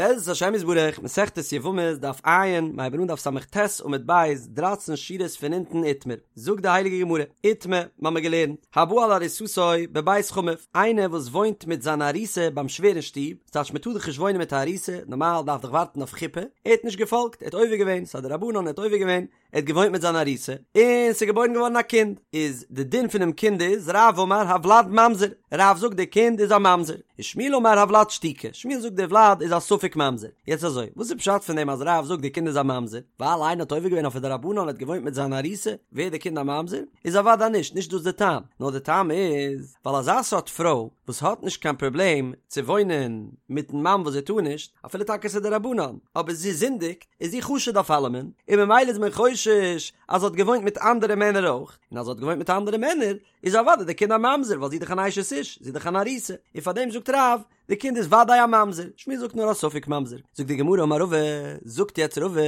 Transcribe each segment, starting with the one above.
בעזרת השם יתברך, מסכת יבמות, דף ע', מ'הייבן אן דף ס"ט עמוד ב', דרייצן שורות פון אונטן איתמר, זאגט די הייליגע גמרא, איתמר, מ'האמיר געלערנט, הבא על ארוסתו בבית חמיו, איינער וואס וואוינט מיט זיין ארוסה ביים שווער אין שטוב, ס'טייטש מ'טאר דאך נישט וואוינען מיט א ארוסה, נארמאל דארף דאך ווארטן אויף חופה, ער האט נישט געפאלגט, ער האט עובר געווען, ס'איז א דרבנן, ער האט עובר געווען, ער האט געוואוינט מיט זיין ארוסה, און ס'איז געבוירן געווארן א קינד, איז די דין פונעם קינד איז, רב אמר הוולד ממזר, רב זאגט די קינד איז א ממזר, און שמואל אמר הוולד שתוקי, שמואל זאגט די וולד איז א ספק ממזר, יעצט אזוי, וואס איז פשט פון דעם אז רב זאגט די קינד איז א ממזר, ווייל איינער האט עובר געווען אויף א דרבנן און האט געוואוינט מיט זיין ארוסה, ווערט די קינד א ממזר? איז אוודאי נישט, נישט דאס די טעם, נאר די טעם איז, ווייל אזא סארט פרוי וואס האט נישט קיין פראבלעם צו וואוינען מיטן מאן וואס זי טאר נישט, אפילו טאקע ס'איז דרבנן, אבער זי זינדיגט, איז זי חשוד אויף אלעמען, און ממילא איז מען חושש אז זי האט געוואוינט מיט אנדערע מענער אויך, און אז זי האט געוואוינט מיט אנדערע מענער, איז אוודאי די קינד א ממזר, ווייל זי איז דאך אן אשת איש, זי איז דאך אן ארוסה, און פאר דעם זאגט רב, די קינד איז וודאי א ממזר, שמואל זאגט נאר א ספק ממזר, זאגט די גמרא אמר רבא, זאגט יעצט רבא,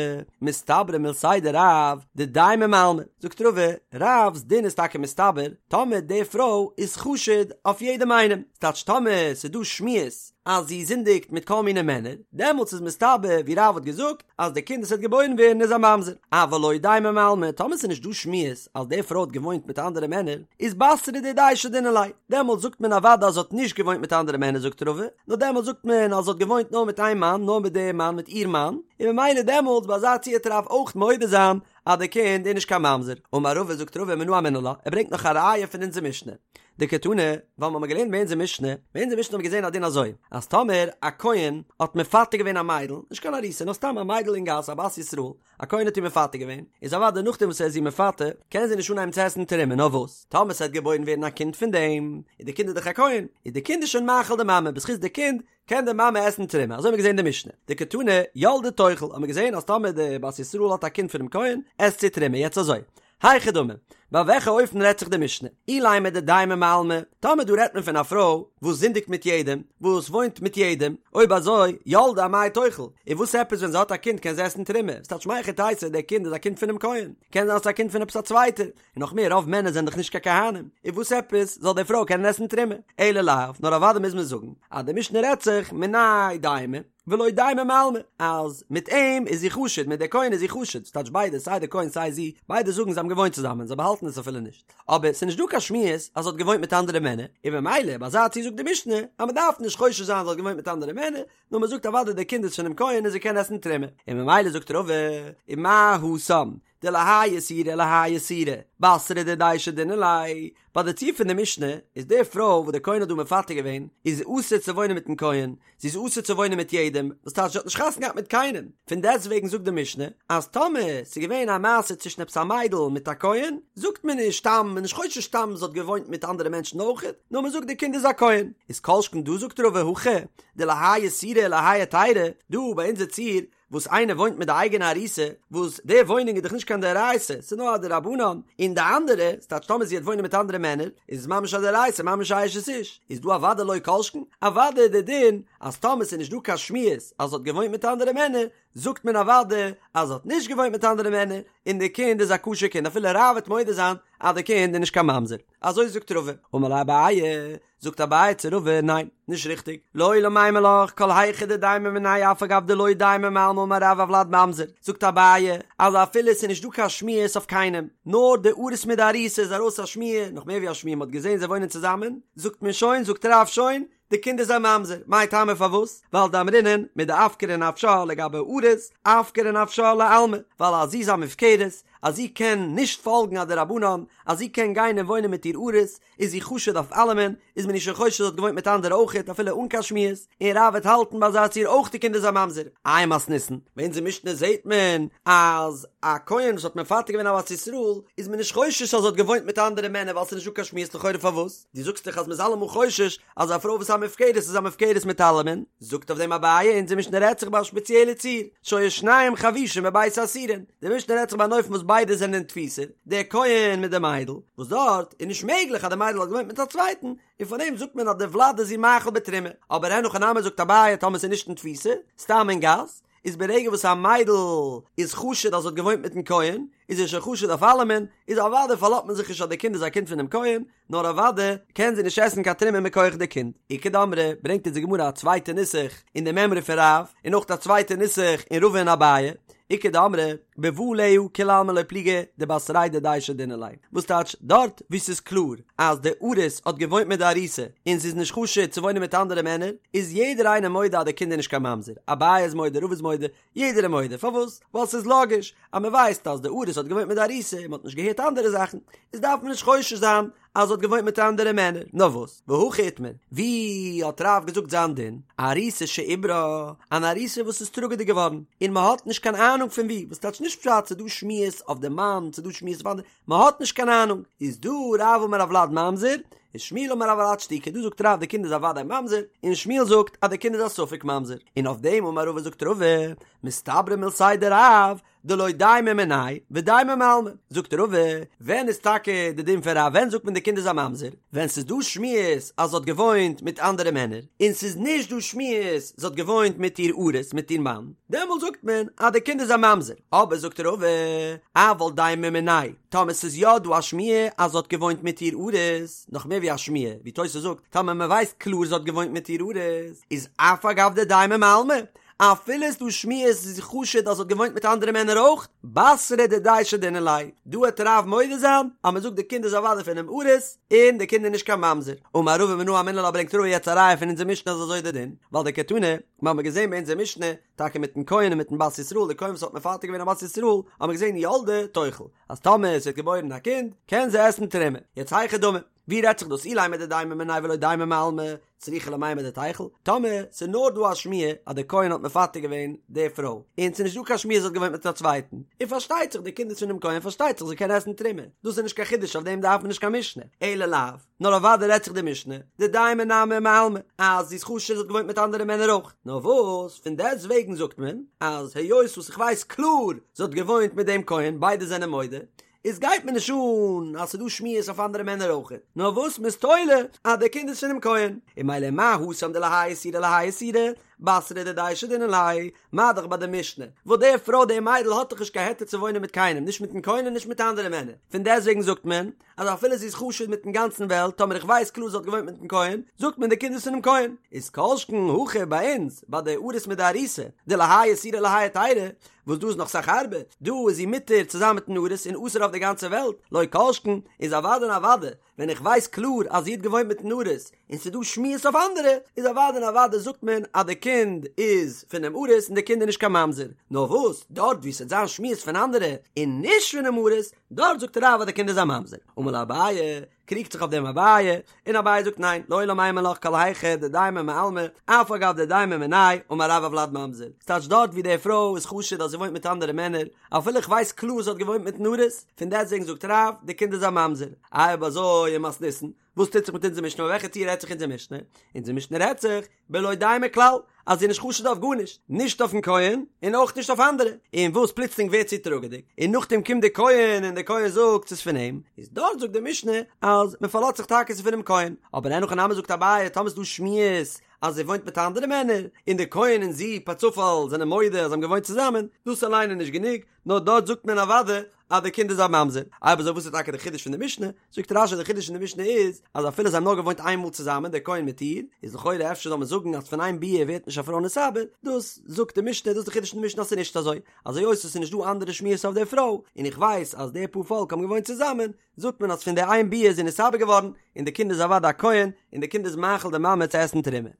מסתברא מילתיה דרב, דדיימא מעלמא, זאגט רבא, רב'ס דין איז טאקע מסתבר, טאמער די פרוי איז חשוד אויף יעדעם איינעם, ס'טייטש טאמער ס'איז דא שמועות אז זי זינדיגט מיט כל מיני מענער, דעמאלטס איז מסתבר ווי רב האט געזאגט אז די קינד וואס וועט געבוירן ווערן איז א ממזר, אבל לא דיימא מעלמא, טאמער ס'איז נישט דא שמועות אז די פרוי האט געוואוינט מיט אנדערע מענער, איז בתרא דידיה שדינן ליה, דעמאלטס זאגט מען אוודאי אז זי האט נישט געוואוינט מיט אנדערע מענער זאגט רבא, נאר דעמאלטס זאגט מען אז זי האט געוואוינט נאר מיט איין מאן, נאר מיט די מאן, מיט איר מאן, און ממילא דעמאלטס ביי אזא ציור וועט רב אויך מודה זיין אז די קינד איז נישט קיין ממזר. אמר רבא זאגט רבא מנא אמינא לה, ער ברענגט נאך א ראיה פון אונזער משנה, דקתני, ווייל מ'האמיר געלערנט ביי אונזער משנה, ביי אונזער משנה האבן מיר געזען א דין אזוי, אז טאמער א כהן האט מפתה געווען א מיידל, נישט קיין ארוסה, נאר סתם א מיידל אין גאס, א בת ישראל, א כהן האט איר מפתה געווען, איז אוודאי נאכדעם וואס ער איז איר מפתה, קען זי נישט אנהייבן צו עסן תרומה, נאר וואס, טאמער ס'וועט געבוירן ווערן א קינד פון דעם, איז די קינד איז דאך א כהן, איז די קינד איז שוין מאכיל די מאמע, בזכות די קינד קען די מאמע עסן תרומה, אזוי האבן מיר געזען אין די משנה, דקתני ילדה תאכל, האבן מיר געזען אז טאמער די בת ישראל האט א קינד פונעם כהן, עסט זי תרומה, יעצט אזוי, היכי דמי, ביי וועלכע אופן רעדט זיך די משנה? אילימא דדיימא מעלמא, טאמער דא רעדט מען פון א פרוי וואס זינדיגט מיט יעדעם, וואס וואוינט מיט יעדעם, אויב אזוי, ילדה אמאי תאכל, און וואס עפעס ווען זי האט א קינד קען זי עסן תרומה, ס'טייטש מהיכי תיתי דער קינד איז א קינד פונעם כהן, קען זיין ס'איז א קינד פון עפעס א צווייטער, און נאך מער רוב מענער זענען דאך נישט קיין כהנים, און וואס עפעס זאל די פרוי קענען עסן תרומה? אלא לאו, נאר אוודאי מוז מען זאגן אז די משנה רעדט זיך מיניה דיימא ולא דיימא מעלמא, אז מיט אים איז זי חשוד, מיט די כהן איז זי חשוד, ס'טייטש ביידע סיי די כהן סיי זי, ביידע זאגן זיי האבן געוואוינט צוזאמען, זיי באהאלטן עס אפילו נישט, אבער ס'איז נישט דא קיין שמועות אז זי האט געוואוינט מיט אנדערע מענער, און ממילא ביי אזא ציור זאגט די משנה אז מ'דארף נישט חושש זיין זי האט געוואוינט מיט אנדערע מענער, נאר מ'זאגט אוודאי די קינד איז פונעם כהן און זי קען עסן תרומה, און ממילא זאגט רבא, ומה התם, דלהאי איסורא ולהאי איסורא, בתרא דידיה שדינן ליה, ביי די ציור פון די משנה איז די פרוי וואס די כהן האט דא מפתה געווען איז אסור צו וואוינען מיטן כהן, זי איז אסור צו וואוינען מיט יעדעם, וואס טייטש זי האט נישט חתונה געהאט מיט קיינעם, פון דעסטוועגן זאגט די משנה אז טאמער ס'איז געווען א מעשה צווישן עפעס א מיידל מיט א כהן, זאגט מען נישט סתם, מ'איז נישט חושש סתם זי האט געוואוינט מיט אנדערע מענטשן אויכעט, נאר מ'זאגט די קינד איז א כהן, איז כל שכן דא זאגט רבא הכא דלהאי איסורא ולהאי היתירא, דא ביי אונזער ציור וואס איינער וואוינט מיט די אייגענע ארוסה, וואס די וואוינונג איז דאך נישט קיין דאורייתא, ס'איז נאר א דרבנן, און די אנדערע, ס'טייטש טאמער זי וועט וואוינען מיט אנדערע מענער, איז עס ממש א דאורייתא, ממש א אשת איש, איז דא אוודאי לא כל שכן, אוודאי איז די דין אז טאמער ס'איז נישט דא קיין שמועות אז זי האט געוואוינט מיט אנדערע מענער, זאגט מען אוודאי אז זי האט נישט געוואוינט מיט אנדערע מענער, און די קינד איז א כשר קינד אפילו רב וועט מודה זיין אז די קינד איז נישט קיין ממזר. אזוי זאגט רבא. אמר ליה אביי, זאגט אביי צו רבא, ניין, נישט ריכטיג, לעולם אימא לך, כל היכא דדיימא מיניה אף על גב דלא דיימא מעלמא אמר רב הולד ממזר, זאגט אביי, אז אפילו עס איז נישט דא קיין שמועות אויף קיינעם, נאר די ארוס מיט די ארוסה איז ארויס א שמועה, נאך מער ווי א שמועה, מען האט געזען זיי וואוינען צוזאמען, זאגט מען שוין, זאגט רב שוין, די קינד איז א ממזר, מאי טעמא פארוואס? ווייל דאמרינן, מדאפקרא נפשה לגבי ארוס, אפקרא נפשה לעלמא, ווייל אז זי איז א מופקרת, אז זי קען נישט פאלגן א דרבנן, אז זי קען גיין און וואוינען מיט איר ארוס, איז זי חשוד אויף אלעמען, איז מען איר שוין חושד זי האט געוואוינט מיט אנדערע אויכעט אפילו אן קיין שמועות, און רב וועט האלטן ביי אזא ציור אויך די קינד איז א ממזר. איי מתניתין, ביי אונזער משנה זעהט מען אז א כהן וואס האט מפתה געווען א בת ישראל איז מען נישט חושש אז זי האט געוואוינט מיט אנדערע מענער ווייל ס'איז נישט דא קיין שמועות לכאורה פארוואס? דו זאגסט דאך אז מ'איז אלעמאל חושש אז א פרוי וואס איז א מופקרת איז א מופקרת מיט אלעמען, זאגט אויף דעם אביי אונזער משנה רעדט זיך ביי א שפעציעלע ציור, שהיו שניהם חבושים בבית האסורין, די משנה רעדט זיך ביי אן אופן וואס ביידע זענען אין תפיסה, דער כהן מיט די מיידל, וואס דארט איז נישט מעגליך אז די מיידל האט געוואוינט מיט א צווייטן, און פאר דעם זאגט מען אז די ולד איז איר מאכיל בתרומה, אבער אין הכי נמי זאגט אביי טאמער ס'איז נישט אין תפיסה, סתם אין גאס, איז ברגע וואס א מיידל איז חשוד אז זי האט געוואוינט מיטן כהן, איז זי שוין חשוד אויף אלעמען, איז אוודאי פארלאזט מען זיך נישט אז די קינד איז א קינד פונעם כהן, נאר אוודאי קען זי נישט עסן קיין תרומה מכח די קינד. איכא דאמרי, ברענגט אונז די גמרא א צווייטע נוסח אין די מימרא פון רב, און אויך א צווייטע נוסח אין רבא און אביי, איכא דאמרי, בבא עליה כולי עלמא לא פליגי דבתריה דידיה שדינן ליה, וואס טייטש דארט וואו ס'איז קלאר אז די ארוס האט געוואוינט מיט די ארוסה און זי איז נישט חשוד צו וואוינען מיט אנדערע מענער, איז יעדער איינער מודה אז די קינד איז נישט קיין ממזר, אביי איז מודה, רבא איז מודה, יעדער איז מודה, פארוואס? ווייל ס'איז לאגיש אז מ'ווייסט אז די ארוס האט געוואוינט מיט די ארוסה און מ'האט נישט געהערט אנדערע זאכן, איז דארף מען נישט חושש זיין אז זי האט געוואוינט מיט אנדערע מענער, נאר וואס? והכי איתמר, ווי האט רב געזאגט זיין דין? ארוסה שעוברה, אן ארוסה וואס איז טראגעדיג געווארן, און מ'האט נישט קיין אהנונג פון ווי, וואס טייטש נישט פשט ס'איז דא שמועות אויף די מאן, ס'איז דא שמועות אויף אנדערע, מ'האט נישט קיין אהנונג, איז דא רב אמר הולד ממזר, ושמואל אמר הולד שתוקי, דא זאגט רב די קינד איז א וודאי ממזר, און שמואל זאגט אז די קינד איז א ספק ממזר, און אויף דעם אמר רבא זאגט רבא, מסתברא מילתיה דרב, דלא דיימא מיניה ודיימא מעלמא, זאגט רבא, ווען איז טאקע די דין פון רב ווען זאגט מען די קינד איז א ממזר? ווען ס'איז דא שמועות אז זי האט געוואוינט מיט אנדערע מענער, און ס'איז נישט דא שמועות זי האט געוואוינט מיט איר ארוס מיט איר מאן, דעמאלט זאגט מען אז די קינד איז א ממזר, אבער זאגט רבא, אבל דיימא מיניה, טאמער ס'איז יא דא א שמועה אז זי האט געוואוינט מיט איר ארוס, נאך מער ווי א שמועה, ווי תוס' זאגט, טאמער מ'ווייסט קלאר זי האט געוואוינט מיט איר ארוס, איז אף על גב דדיימא מעלמא, אפילו איז דא שמועות זי איז חשוד אז זי האט געוואוינט מיט אנדערע מענער אויך, בתריה דידיה שדינן ליה, דא העט רב מודה זיין אז מען זאגט די קינד איז אוודאי פונעם ארוס, און די קינד איז נישט קיין ממזר. אמר רבא מנא אמינא לה ברענגט רבא יעצט א ראיה פון אונזער משנה אז אזוי איז די דין, ווייל דקתני, מיר האבן געזען ביי אונזער משנה, טאקע מיטן כהן און מיטן בת ישראל, די כהן וואס האט מפתה געווען א בת ישראל, האבן מיר געזען ילדה תאכל, אז טאמער עס ווערט געבוירן א קינד, קען זי עסן תרומה. יעצט היכי דמי, ווי רעדט זיך דאס אילימא דדיימא מיניה ולא דיימא מעלמא, צריכא למימר דתיכול, טאמער ס'איז נאר דא א שמועה אז דער כהן האט מפתה געווען די פרוי, און ס'איז נישט דא קיין שמועה זי האט געוואוינט מיט א צווייטן, און פארשטייט זיך די קינד איז פונעם כהן פארשטייט זיך זי קען עסן תרומה, דאס איז נישט קיין חידוש אויף דעם דארף מען נישט קיין משנה, אלא לאו, נאר אוודאי רעדט זיך די משנה, דדיימא נמי מעלמא, אז זי איז חשוד זי האט געוואוינט מיט אנדערע מענער אויך, נאר וואס פון דעסט וועגן זאגט מען אז היות וואס איך ווייס קלאר זי האט געוואוינט מיט דעם כהן ביידע זענען מודה, איז גייט מיר נישט אן אז ס'דא שמועות אויף אנדערע מענער אויכעט, נאר וואס מ'איז תולה אז דער קינד איז פונעם כהן, און ממילא מה התם דלהאי איסורא להאי איסורא, בתריה דידיה שדינן ליה, מה דאך ביי די משנה, וואס די פרוי די מיידל האט דאך נישט קיין היתר צו וואוינען מיט קיינעם, נישט מיטן כהן און נישט מיט אנדערע מענער, פון דעסטוועגן זאגט מען אז אפילו זי איז חשוד מיטן גאנצן וועלט, טאמער איך ווייס קלאר זי האט געוואוינט מיטן כהן, זאגט מען די קינד איז פונעם כהן, איז כל שכן הכא ביי אונז, ביי די ארוס מיט די ארוסה, דלהאי איסורא להאי היתירא, וואס דא איז נאך סאך הארבער, דא איז זי מותר צוזאמען מיטן ארוס און אסור אויף די גאנצע וועלט, לא כל שכן, איז אוודאי און אוודאי, ווען איך ווייס קלאר אז זי האט געוואוינט מיטן ארוס, און ס'איז דא שמועות אויף אנדערע, איז אוודאי און אוודאי זאגט מען אז די קינד איז פונעם ארוס און די קינד איז נישט קיין ממזר, נאר וואס, דארט וואו ס'וועט זיין שמועות פון אנדערע און נישט פונעם ארוס, דארט זאגט רב אז די קינד איז א ממזר. אמר ליה אביי, קריגט זיך אויף דעם אביי, און אביי זאגט ניין, לעולם אימא לך כל היכא דדיימא מעלמא, אף על גב דדיימא מיניה, אמר רב הולד ממזר. ס'טייטש דארט ווי די פרוי איז חשוד אז זי וואוינט מיט אנדערע מענער, אפילו איך ווייס קלאר זי האט געוואוינט מיטן ארוס, פון דעסטוועגן זאגט רב, די קינד איז א ממזר. איי אויב אזוי ומתניתין, וואס טוט זיך מיט אונזער משנה, ביי וועלכע ציור רעדט זיך אונזער משנה? אונזער משנה רעדט זיך, בלא דיימא כלל, אז זי איז נישט חשוד אויף גארנישט, נישט אויפן כהן און אויך נישט אויף אנדערע, און וואס פלוצלינג ווערט זי טראגעדיג, און נאכדעם קומט די כהן און די כהן זאגט ס'איז פון אים, איז דארט זאגט די משנה אז מען פארלאזט זיך טאקע ס'איז פונעם כהן, אבער אין הכי נמי זאגט אביי טאמער ס'איז דא שמועות אז זי וואוינט מיט אנדערע מענער, און די כהן און זי פארצופאל זענען מודה אז זיי האבן געוואוינט צוזאמען, דאס אליין איז נישט גענוג, נאר דארט זאגט מען אוודאי אז די קינד איז א ממזר. אויב אזוי וואס איז טאקע די חידוש פון די משנה? זאגט רש"י די חידוש פון די משנה איז אז אפילו זיי האבן נאר געוואוינט איין מאל צוזאמען דער כהן מיט איר, איז לכאורה אפשר זאל מען זאגן אז פון איין ביאה ווערט נישט א פרוי נתעבר, דאס זאגט די משנה דאס איז די חידוש פון די משנה אז ס'איז נישט אזוי, אז היות עס איז נישט דא אנדערע שמועות אויף די פרוי, און איך ווייס אז די פאר פאלק האבן געוואוינט צוזאמען, זאגט מען אז פון די איין ביאה איז זי נתעבר געווארן, און די קינד איז אוודאי א כהן, און די קינד איז מאכיל די מאמע צו עסן תרומה.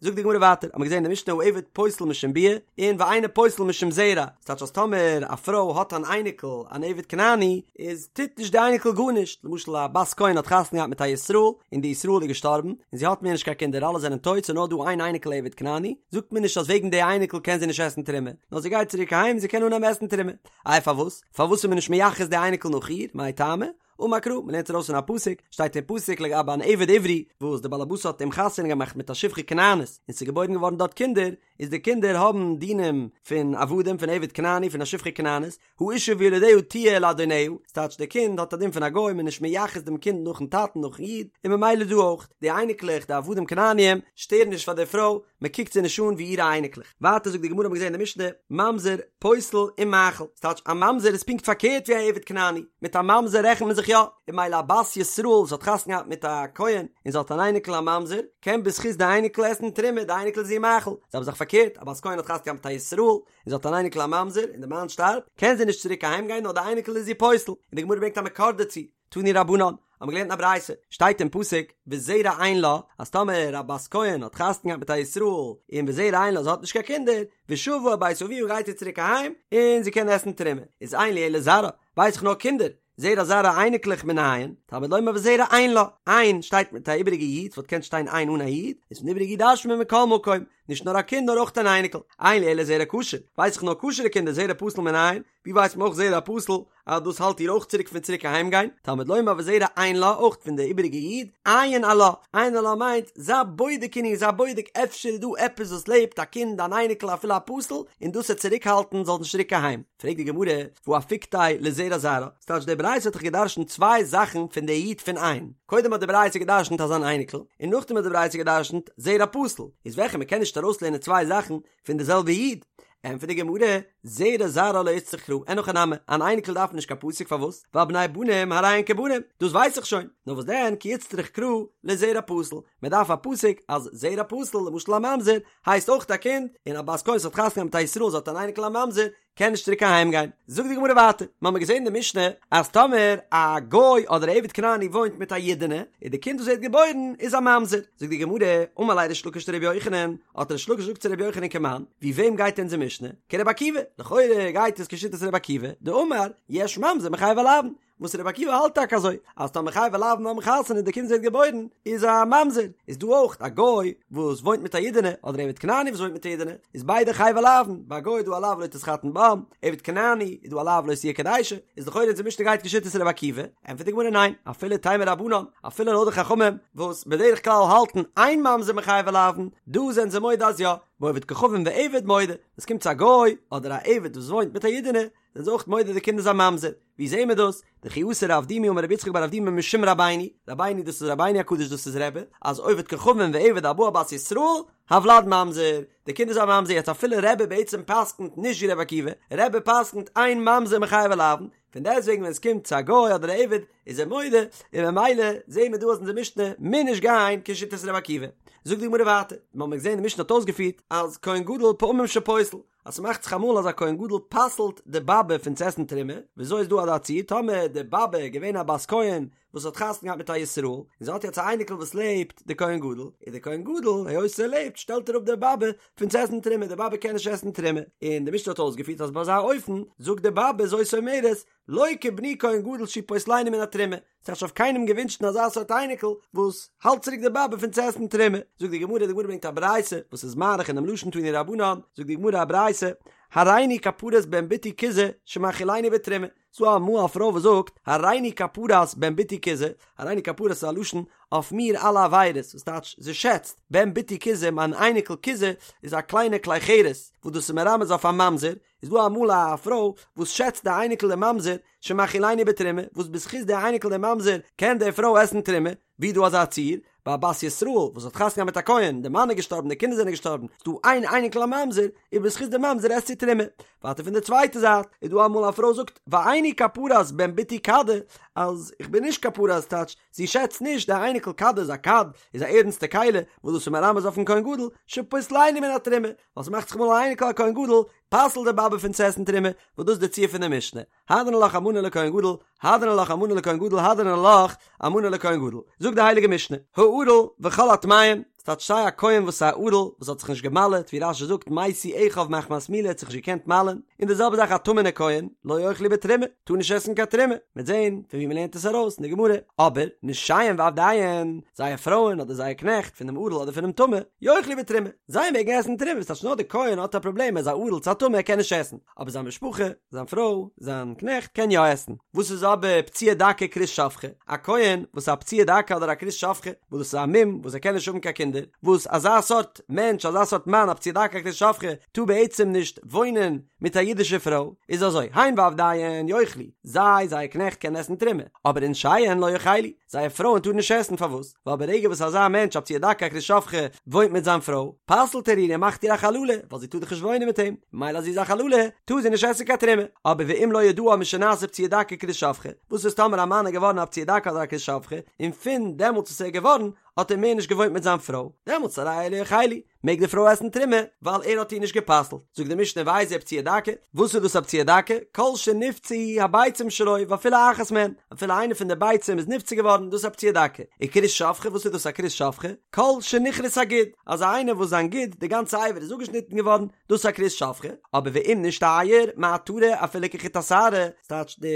זאגט די גמרא ווייטער, האט מען געזען אין די משנה העבד פוסל משום ביאה, און ואינו פוסל משום זרע, ס'טייטש אז טאמער א פרוי האט אן אייניקל אן עבד כנעני, איז טוט נישט די אייניקל גארנישט, למשל א בת כהן האט חתונה געהאט מיט א ישראל, און די ישראל איז געשטארבן, און זי האט מער נישט קיין קינדער אלע זענען טויט ס'איז נאר דא איין אייניקל עבד כנעני, זאגט מען נישט אז וועגן די אייניקל קען זי נישט עסן תרומה, נאר זי גייט צוריק אהיים און זי קען אנהייבן עסן תרומה. איי פארוואס? פארוואס איז מען נישט מייחס די אייניקל נאך איר? מאי טעמא? אמר קרא, מען לערנט ארויס פון א פסוק, שטייט אין פסוק לגבי אן עבד עברי, וואס די בעל הבית האט אים חתונה געמאכט מיט א שפחה כנענית, און ס'איז געבוירן געווארן דארט קינדער, איז די קינדער האבן דינים פון עבדים פון עבד כנעני פון א שפחה כנענית, האשה וילדיה תהיה לאדוניה, ס'טייטש די קינד האט א דין פון א גוי מ'איז נישט מייחס דעם קינד נאכן טאטן נאכן איד, און ממילא דא אויך, די אייניקלעך די עבדים כנעניים שטערן נישט פאר די פרוי, מ'קוקט זיי נישט אן ווי אירע אייניקלעך. ווייטער זאגט די גמרא האבן מיר געזען אין די משנה, ממזר, פוסל ומאכיל, ס'טייטש א ממזר איז פונקט פארקערט ווי א עבד כנעני, מיט א ממזר רעכנט מען זיך יא, און ממילא א בת ישראל וואס האט חתונה געהאט מיט א כהן און זי האט אן אייניקל א ממזר, קען בזכות די אייניקל עסן תרומה, די אייניקל איז איר מאכיל, זעלבע זאך פארקערט, א בת כהן האט חתונה געהאט מיט א ישראל, און זי האט אן אייניקל א ממזר, און די מאן שטארבט, קען זי נישט צוריק אהיים גיין נאר די אייניקל איז איר פוסל, און די גמרא ברענגט א מקור דערצו, תנו רבנן, האבן מיר געלערנט אין א ברייתא, שטייט אין פסוק, וזרע אין לה, אז טאמער א בת כהן האט חתונה געהאט מיט א ישראל, און וזרע אין לה זי האט נישט קיין קינדער, ושבה אל בית אביה גייט זי צוריק אהיים, און זי קען עסן תרומה, איז אין לי אלא זרעה, ווייס איך נאר קינדער, זרע זרעה אייניקלעך מנין, תלמוד לומר וזרע אין לה, אין שטייט מיט א איבעריגע יוד, ס'וואלט געקענט שטיין אין אן א יוד, איז פון די איבעריגע יוד דרש'נט מען מכל מקום, נישט נאר א קינד נאר אויך אן אייניקל, אין לי אלא זרע כשר, ווייס איך נאר כשר'ע קינדער זרע פסול מנין, ווי ווייסט מען אויך זרע פסול אז דאס האלט איר אויך צוריק פון צוריק אהיים גיין, תלמוד לומר וזרע אין לה אויך פון די איבעריגע יוד, עיין עלה, עיין עלה מיינט זיי בודק אין איר זיי בודק אפשר איז דא עפעס וואס לעבט א קינד אן אייניקל אפילו א פסול און דאס וועט צוריק האלטן זאל נישט צוריק אהיים. פרעגט די גמרא, והא אפיקתיה לזרע זרעה, ס'טייטש די ברייתא האט דאך געדרשנט צוויי זאכן פון די יוד פון אין, קודם האט די ברייתא געדרשנט אז אן אייניקל, און נאכדעם האט די ברייתא געדרשנט זרע פסול, איז וועלכע מ'קען נישט ארויסלערנען צוויי זאכן פון די זעלבע יוד? ענטפערט די גמרא, זרע זרעה לא איצטריך קרא, אין הכי נמי, אן אייניקל דארף נישט קיין פסוק פארוואס? ווייל בני בנים הרי הן כבנים, דאס ווייס איך שוין, נאר וואס דען כי איצטריך קרא לזרע פסול, מען דארף א פסוק אז זרע פסול למשל א ממזר הייסט אויך א קינד, און א בת כהן וואס האט חתונה געהאט מיט א ישראל זי האט אן אייניקל א ממזר קען נישט צוריק אהיים גיין. זאגט די גמרא ווייטער, מ'האמיר געזען אין די משנה אז טאמער א גוי אדער א עבד כנעני וואוינט מיט א אידענע איז די קינד וואס ווערט געבוירן איז א ממזר, זאגט די גמרא, אמר ליה ריש לקיש לרבי יוחנן, האט ריש לקיש געזאגט צו רבי יוחנן כמאן, ווי וועם גייט אונזער משנה? כרבי עקיבא, לכאורה גייט עס כשיטת רבי עקיבא, דאמר יש ממזר מחייבי לאוין, וואס רבי עקיבא האלט טאקע אזוי אז טאמער חייבי לאוין האבן חתונה און די קינד ווערט געבוירן איז א ממזר, איז דא אויך א גוי וואס וואוינט מיט א אידענע אדער עבד כנעני וואס וואוינט מיט א אידענע איז ביידע חייבי לאוין, ביי א גוי איז דא א לאו לא תתחתן בם, עבד כנעני איז דא א לאו לא תהיה קדשה, איז לכאורה אונזער משנה גייט כשיטת רבי עקיבא, ענטפערט די גמרא ניין, אפילו תימא רבנן, אפילו לויט די חכמים וואס בדרך כלל האלטן אין ממזר מחייבי לאוין, דא זענען זיי מודה אז יא, בעובד כוכבים ועבד מודה, ווען עס קומט צו א גוי אדער א עבד וואס וואוינט מיט א אידענע זענען זיי אויך מודה די קינד איז א ממזר, ווי זעהן מיר דאס? דכי אתא רב דימי אמר רבי יצחק בר אבדימי משום רבינו, רבינו דאס איז רבינו הקדוש דאס איז רבי, אז עובד כוכבים ועבד הבא על בת ישראל, הולד ממזר, די קינד איז א ממזר, יעצט אפילו רבי בעצם פסק'נט נישט ווי רבי עקיבא, רבי פסק'נט אין ממזר מחייבי לאוין, פון דעסטוועגן ווען עס קומט צו א גוי אדער א עבד איז ער מודה, און ממילא זעהן מיר דא אז אונזער משנה מוז נישט גיין כשיטת רבי עקיבא. זאגט די גמרא ווייטער, מיר האבן געזעהן די משנה האט אויסגעפירט אז כהן גדול פעמים שפוסל, אז ס'מאכט זיך אמאל אז א כהן גדול פסל'ט די באבע פון צו עסן תרומה, וויאזוי איז דא אזא ציור טאמער די באבע איז געווען א בת כהן וואס האט חתונה געהאט מיט א ישראל, און זי האט יעצט א אייניקל וואס לעבט די כהן גדול, איז די כהן גדול היות ער לעבט שטעלט ער אפ די באבע פון צו עסן תרומה, די באבע קען נישט עסן תרומה, און די משנה האט אויסגעפירט אז ביי אזא אופן זאגט די באבע זאת אומרת לא כבני כהן גדול שהוא פוסלני מן התרומה, ס'האט אויף קיינעם געווינטשן אזא סארט אייניקל וואס האלט צוריק די באבע פון צו עסן תרומה. זאגט די גמרא, די גמרא ברענגט א ברייתא וואס איז מאריך אינעם לשון תנו רבנן, זאגט די גמרא א ברייתא, הריני כפרת בן בתי כוזא שמאכילני בתרומה, ס'דא אמאל א פרוי וואס זאגט, הריני כפרת בן בתי כוזא, הריני כפרת איז א לשון אויף מיר אלע עבירות, וואס טייטש זי שעצט, בן בתי כוזא, מיין אייניקל כוזא איז א קליינע כלי חרס, וואס דאס איז מרמז אויף א ממזר, איז דא אמאל א פרוי וואס שעצט די אייניקל די ממזר שמאכילני בתרומה, וואס בזכות די אייניקל די ממזר קען די פרוי עסן תרומה, ווי דא אזא ציור, ביי א בת ישראל וואס האט חתונה געהאט מיט א כהן, די מאן איז געשטארבן די קינדער זענען געשטארבן, איז דא איין אייניקל א ממזר, און בזכות די ממזר עסט זי תרומה. ווייטער פון די צווייטע זייט, איז דא אמאל א פרוי זאגט ואיני כפרת בן בתי כדא, אז איך בין נישט כפרת טייטש זי שעצט נישט די אייניקל כדא איז א כד, איז א ערנסטע כלי, וואס דאס איז מרמז אויפן כהן גדול, שפוסלני מן התרומה, ווייל ס'מאכט זיך אמאל א אייניקל א כהן גדול, פסל'ט די באבע פון צו עסן תרומה, וואס דאס איז די ציור פון די משנה, הדרן עלך אלמנה לכהן גדול, הדרן עלך אלמנה לכהן גדול, הדרן עלך אלמנה לכהן גדול. זאגט די הייליגע משנה, הערל וכל הטמאים, ס'טייטש סיי א כהן וואס איז א ערל, וואס האט זיך נישט געמל'עט, ווי רש"י זאגט, מתו אחיו מחמת מילה האט זיך נישט געקענט מל'ען, און די זעלבע זאך א טמא'נע כהן, לא יאכלו בתרומה, טאר נישט עסן קיין תרומה, מ'וועט זען פון ווי מ'לערנט עס ארויס אין די גמרא, אבער נשיהם ועבדיהם, זייער פרויען אדער זייער קנעכט, פון דעם ערל אדער פונעם טמא, יאכלו בתרומה, זיי מעגן עסן תרומה, ס'טייטש נאר די כהן האט א פראבלעם ער איז א ערל צו א טמא ער קען נישט עסן, אבער זיין משפחה, זיין פרוי, זיין קנעכט קען יא עסן. וואס איז אבער פצוע דכא וכרות שפכה? א כהן וואס איז א פצוע דכא אדער א כרות שפכה, וואס דאס איז א מום וואס ער קען נישט האבן קיין קינדער. קינדער, וואס אזא סארט מענטש, אזא סארט מאן, א פצוע דכא א כרות שפכה, טאר בעצם נישט וואוינען מיט א אידישע פרוי, איז אזוי, הן ועבדיהן יאכלו, זיי, זייער קנעכט קענען עסן תרומה, אבער ונשיהן לא יאכלו, זייער פרויען טארן נישט עסן, פארוואס? ווייל ברגע וואס אזא מענטש א פצוע דכא א כרות שפכה וואוינט מיט זיין פרוי, פסל'ט ער איר און מאכט איר א חללה, ווייל זי טאר דאך נישט וואוינען מיט אים, ממילא אז זי איז א חללה, טאר זי נישט עסן קיין תרומה. אבער ואם לא ידעה משנעשה פצוע דכא כרות שפכה, וואס איז טאמער א מאן איז געווארן א פצוע דכא אדער א כרות שפכה, און פון דעמאלטס וואס ער איז געווארן, האט ער מער נישט געוואוינט מיט זיין פרוי, דעמאלטס הרי אלו יאכלו, מעג די פרוי עסן תרומה, ווייל ער האט איר נישט גע'פסל'ט. זאגט די משנה ואיזהו פצוע דכא, וואס איז דאס א פצוע דכא? כל שנפצעו הביצים שלו ואפילו אחת מהן, אפילו איינע פון די ביצים איז נפצע געווארן, דאס איז א פצוע דכא. וכרות שפכה, וואס איז דאס א כרות שפכה? כל שנכרת הגיד, אזא איינער וואס זיין גיד, די גאנצע אבר איז אפגעשניטן געווארן, דאס איז א כרות שפכה. אבער ואם נשתייר מעטרה אפילו כחוט השערה, ס'טייטש די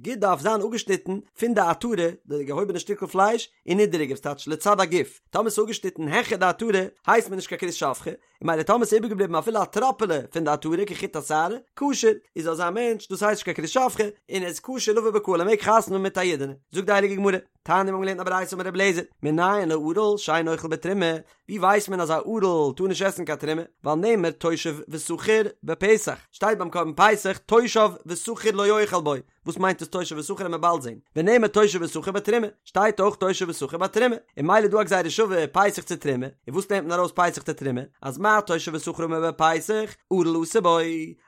גיד דארף זיין אפגעשניטן פון די עטרה, די געהויבענע שטיקל פלייש, און נידעריגער, ס'טייטש לצד הגוף. טאמער ס'איז אפגעשניטן העכער די עטרה, הייסט מען נישט קיין כרות שפכה, און ממילא טאמער ס'איז איבערגעבליבן אפילו א טראפעלע פון די עטרה כחוט השערה, כשר, איז אזא מענטש, דאס הייסט נישט קיין כרות שפכה, און ער איז כשר לבא בקהל ער מעג חתונה האבן מיט א אידענע. זאגט די הייליגע גמרא, תניא מיר האבן געלערנט א ברייתא אמר רבי אליעזר, מנין לערל שאין אוכל בתרומה, ווי ווייסט מען אז א ערל טאר נישט עסן קיין תרומה, ווייל נאמר תושב ושכיר בפסח, שטייט ביים קרבן פסח תושב ושכיר לא יאכל בו, וואס מיינט עס תושב ושכיר וועט מען באלד זעהן ונאמר תושב ושכיר בתרומה שטייט אויך תושב ושכיר בתרומה און ממילא דא א גזירה שווה פסח צו תרומה און וואס לערנט מען ארויס פסח צו תרומה אז מה תושב ושכיר האמור בפסח ערל אסור בו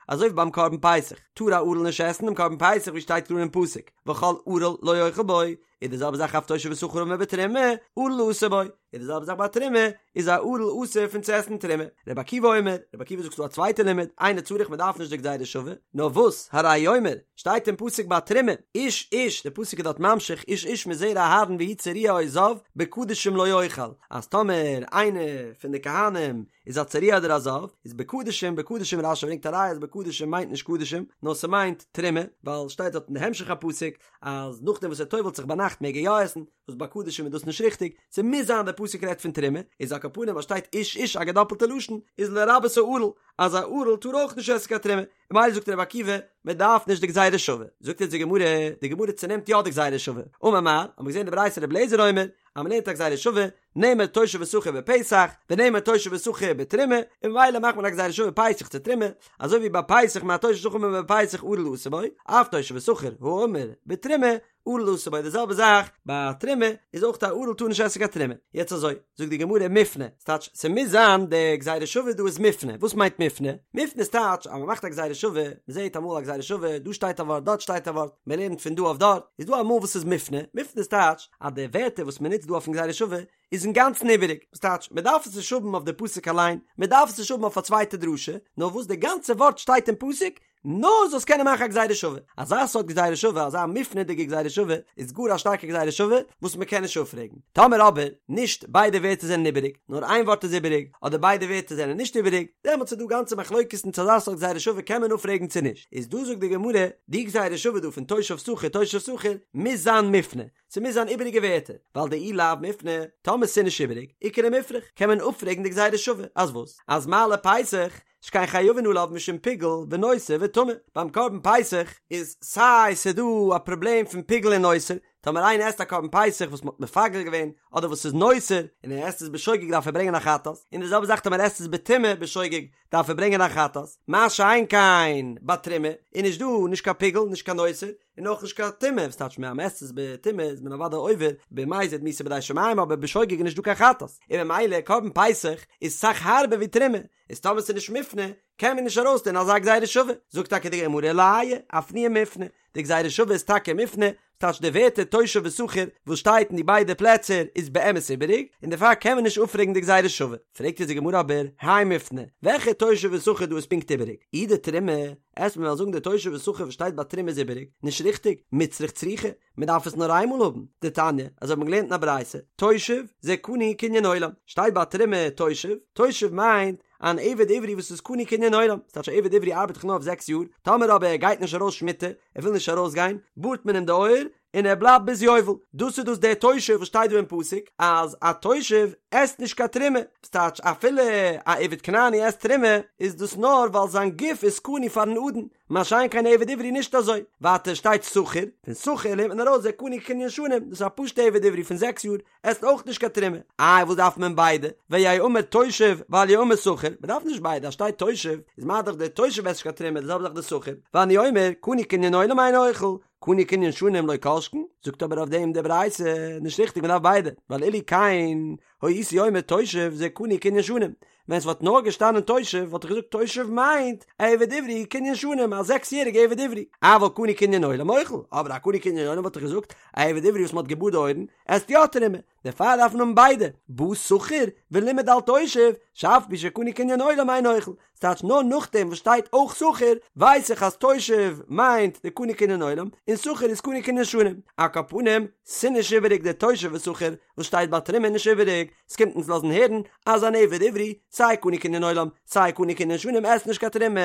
אזוי ווי ביים קרבן פסח טאר א ערל נישט עסן דעם קרבן פסח ווי שטייט קלאר אין פסוק וכל ערל לא יאכל בו איז די זעלבע זאך אף תושב ושכיר האמור בתרומה ערל אסור בו איז די זעלבע זאך ביי תרומה איז א ערל אסור פון צו עסן תרומה רבי עקיבא אומר רבי עקיבא זאגט ס'דא א צווייטע לימוד אינו צריך מ'דארף נישט די גזירה שווה נאר וואס הרי הוא אומר שטייט אין פסוק ביי תרומה איש איש די פסוק איז דארט ממשיך איש איש מזרע אהרן והוא צרוע או זב בקדשים לא יאכל אז טאמער איינער פון די כהנים איז א צרוע אדער א זב איז בקדשים בקדשים רשי ברענגט א ראיה אז בקדשים מיינט נישט קדשים נאר ס'מיינט תרומה ווייל שטייט דארט אין די המשך הפסוק אז נאכדעם וואס ער טובל'ט זיך ביינאכט מעג ער יא עסן, וואס ביי קדשים איז דאס נישט ריכטיג, ס'מוז זיין דער פסוק רעדט פון תרומה, איז על כל פנים אז שטייט איש איש א געדאפלטע לשון, איז לרבות הערל, אז א ערל טאר אויך נישט עסן קיין תרומה, און ממילא זאגט רבי עקיבא, מען דארף נישט די גזירה שווה, זאגט אונז די גמרא, די גמרא צונעמט יא די גזירה שווה, אמר מר, האט מען געזען די ברייתא רבי אליעזר אומר, אז מען לערנט א גזירה שווה, נאמר תושב ושכיר בפסח, ונאמר תושב ושכיר בתרומה, און ממילא מאכט מען א גזירה שווה פסח צו תרומה, אזוי ווי ביי פסח מה תושב ושכיר האמור בפסח ערל אסור בו, אף תושב ושכיר האמור בתרומה, ערל אסור בו, די זעלבע זאך ביי תרומה, איז אויך א ערל טאר נישט עסן קיין תרומה. יעצט אזוי, זאגט די גמרא מופנה, ס'טייטש ס'מוז זיין די גזירה שווה דא איז מופנה, וואס מיינט מופנה? מופנה איז טייטש אז מ'מאכט א גזירה שווה, מ'זעט אמאל א גזירה שווה, דא שטייט א ווארט דארט שטייט א ווארט, מ'לערנט פון דא אויף דארט, איז דא אמאל וואס איז מופנה, מופנה איז טייטש אז די ווערטער וואס מ'נוצט דא אויפן גזירה שווה איז אינגאנצן איבעריג, וואס טייטש מ'דארף עס נישט האבן אויף די פסוק אליין, מ'דארף עס נישט האבן אויף א צווייטע דרשה, נאר וואס די גאנצע ווארט שטייט אין פסוק, נאר זאלסט קענען מאכן א גזירה שווה. אזא סארט גזירה שווה, אזא מופנה'דיגע גזירה שווה, איז גאר א שטארקע גזירה שווה וואס מ'קען נישט אפפרעגן. טאמער אבער, נישט ביידע ווערטער זענען איבעריג, נאר איין ווארט איז איבעריג, אדער ביידע ווערטער זענען נישט איבעריג, דעמאלטס איז דא גאנצע מחלוקת'ן צו אזא סארט גזירה שווה קען מען אפפרעגן צו נישט. איז דא זאגט די גמרא, די גזירה שווה דא פון תושב שכיר תושב שכיר, מוז זיין מופנה. ס'מוז זיין איבעריגע ווערטער, ווייל דאי לאו מופנה, טאמער ס'איז נישט איבעריג, איכא למיפרך, קען מען אפפרעגן די גזירה שווה, אז וואס? אז מה לפסח, שכן חייבין עליו משום פיגול ונותר וטמא, ביים קרבן פסח איז סיי ס'דא א פראבלעם פון פיגול און נותר, טאמער איינער עסט א קרבן פסח וואס מ'האט מפגל געווען, אדער וואס איז נותר, און ער עסט עס בשוגג דארף ער ברענגען א חטאת, און די זעלבע זאך טאמער ער עסט עס בטומאה בשוגג דארף ער ברענגען א חטאת, מה שאין כן ביי תרומה איז נישט דא נישט קיין פיגול נישט קיין נותר, און אויך נישט קיין טומאה, וואס טייטש אז מ'עסט עס בטומאה איז מען אוודאי עובר במזיד מיתה בידי שמים אבער בשוגג איז נישט דא קיין חטאת, און ממילא קרבן פסח איז סאך הארבער ווי תרומה, איז טאמער ס'איז נישט מופנה קען מען נישט ארויסלערנען אזא גזירה שווה, זאגט טאקע די גמרא לאיי, אפנויי מופנה, די גזירה שווה איז טאקע מופנה, ס'טייטש די ווערטער תושב ושכיר וואס שטייט אין די ביידע פלעצער איז באמת איבעריג, און דערפאר קען מען נישט אפפרעגן די גזירה שווה. פרעגט אונז די גמרא אבער, הי מופנה, וועלכע תושב ושכיר דא איז פונקט איבעריג? אי דתרומה, עסט מען וועלן זאגן די תושב ושכיר וואס שטייט ביי תרומה איז איבעריג, נישט ריכטיג, מיצרך צריכא, מען דארף עס נאר איינמאל האבן, דתניא, אזוי האט מען געלערנט אין א ברייתא, תושב, זה קנוי קנין עולם, שטייט ביי תרומה תושב, תושב מיינט אן עבד עברי וואס איז קנוי קנין עולם, ס'טייטש א עבד עברי ארבעט דאך נאר אויף זעקס יאר, טאמער אבער ער גייט נישט ארויס שמיטה, ער וויל נישט ארויסגיין, בארט מען אים די אויער, און ער בלייבט ביז יובל. דאס איז דאס דער תושב וואס שטייט דא אין פסוק אז א תושב עסט נישט קיין תרומה, ס'טייטש אפילו א עבד כנעני עסט תרומה איז דאס נאר ווייל זיין גוף איז קנוי פארן אדון, מה שאין כן עבד עברי נישט אזוי. ווייטער שטייט שכיר, פון שכיר לערנט מען ארויס זה קנוי קנין שנים, דאס איז א פשוטע עבד עברי פון זעקס יאר, עסט אויך נישט קיין תרומה. איי וואס דארף מען ביידע? ויהא אמור תושב ואל יהא אמור שכיר, מען דארף נישט ביידע, אז שטייט תושב איז מה דאך דער תושב עסט נישט קיין תרומה די זעלבע זאך דער שכיר, ואני אומר קנוי קנין עולם אינו אוכל, קנוי קנין שנים לא כל שכן, זאגט אבער אויף דעם די ברייתא, נישט ריכטיג מען דארף ביידע, ווייל אילו כן הייתי אומר תושב זה קנוי קנין שנים, ווען ס'וואלט נאר געשטאנען תושב וואלט איך געזאגט תושב מיינט א עבד עברי קנין שנים א זעקס יעריגע עבד עברי, אבל קנוי קנין עולם אוכל, אבער א קנוי קנין עולם וואלט איך געזאגט א עבד עברי וואס מ'האט געבארט די אויערן עסט יא תרומה, דערפאר דארף מען האבן ביידע, בא שכיר ולימד על תושב, שאף על פי שקנוי קנין עולם אינו אוכל, ס'טייטש נאר נאכדעם וואס שטייט אויך שכיר ווייס איך אז תושב מיינט די קנוי קנין עולם און שכיר איז קנוי קנין שנים, על כל פנים ס'נישט איבעריג די תושב ושכיר וואס שטייט ביי תרומה נישט איבעריג, ס'קומט אונז לאזן הערן אז אן עבד עברי, סיי קנוי קנין עולם, סיי קנוי קנין שנים עסט נישט קיין תרומה.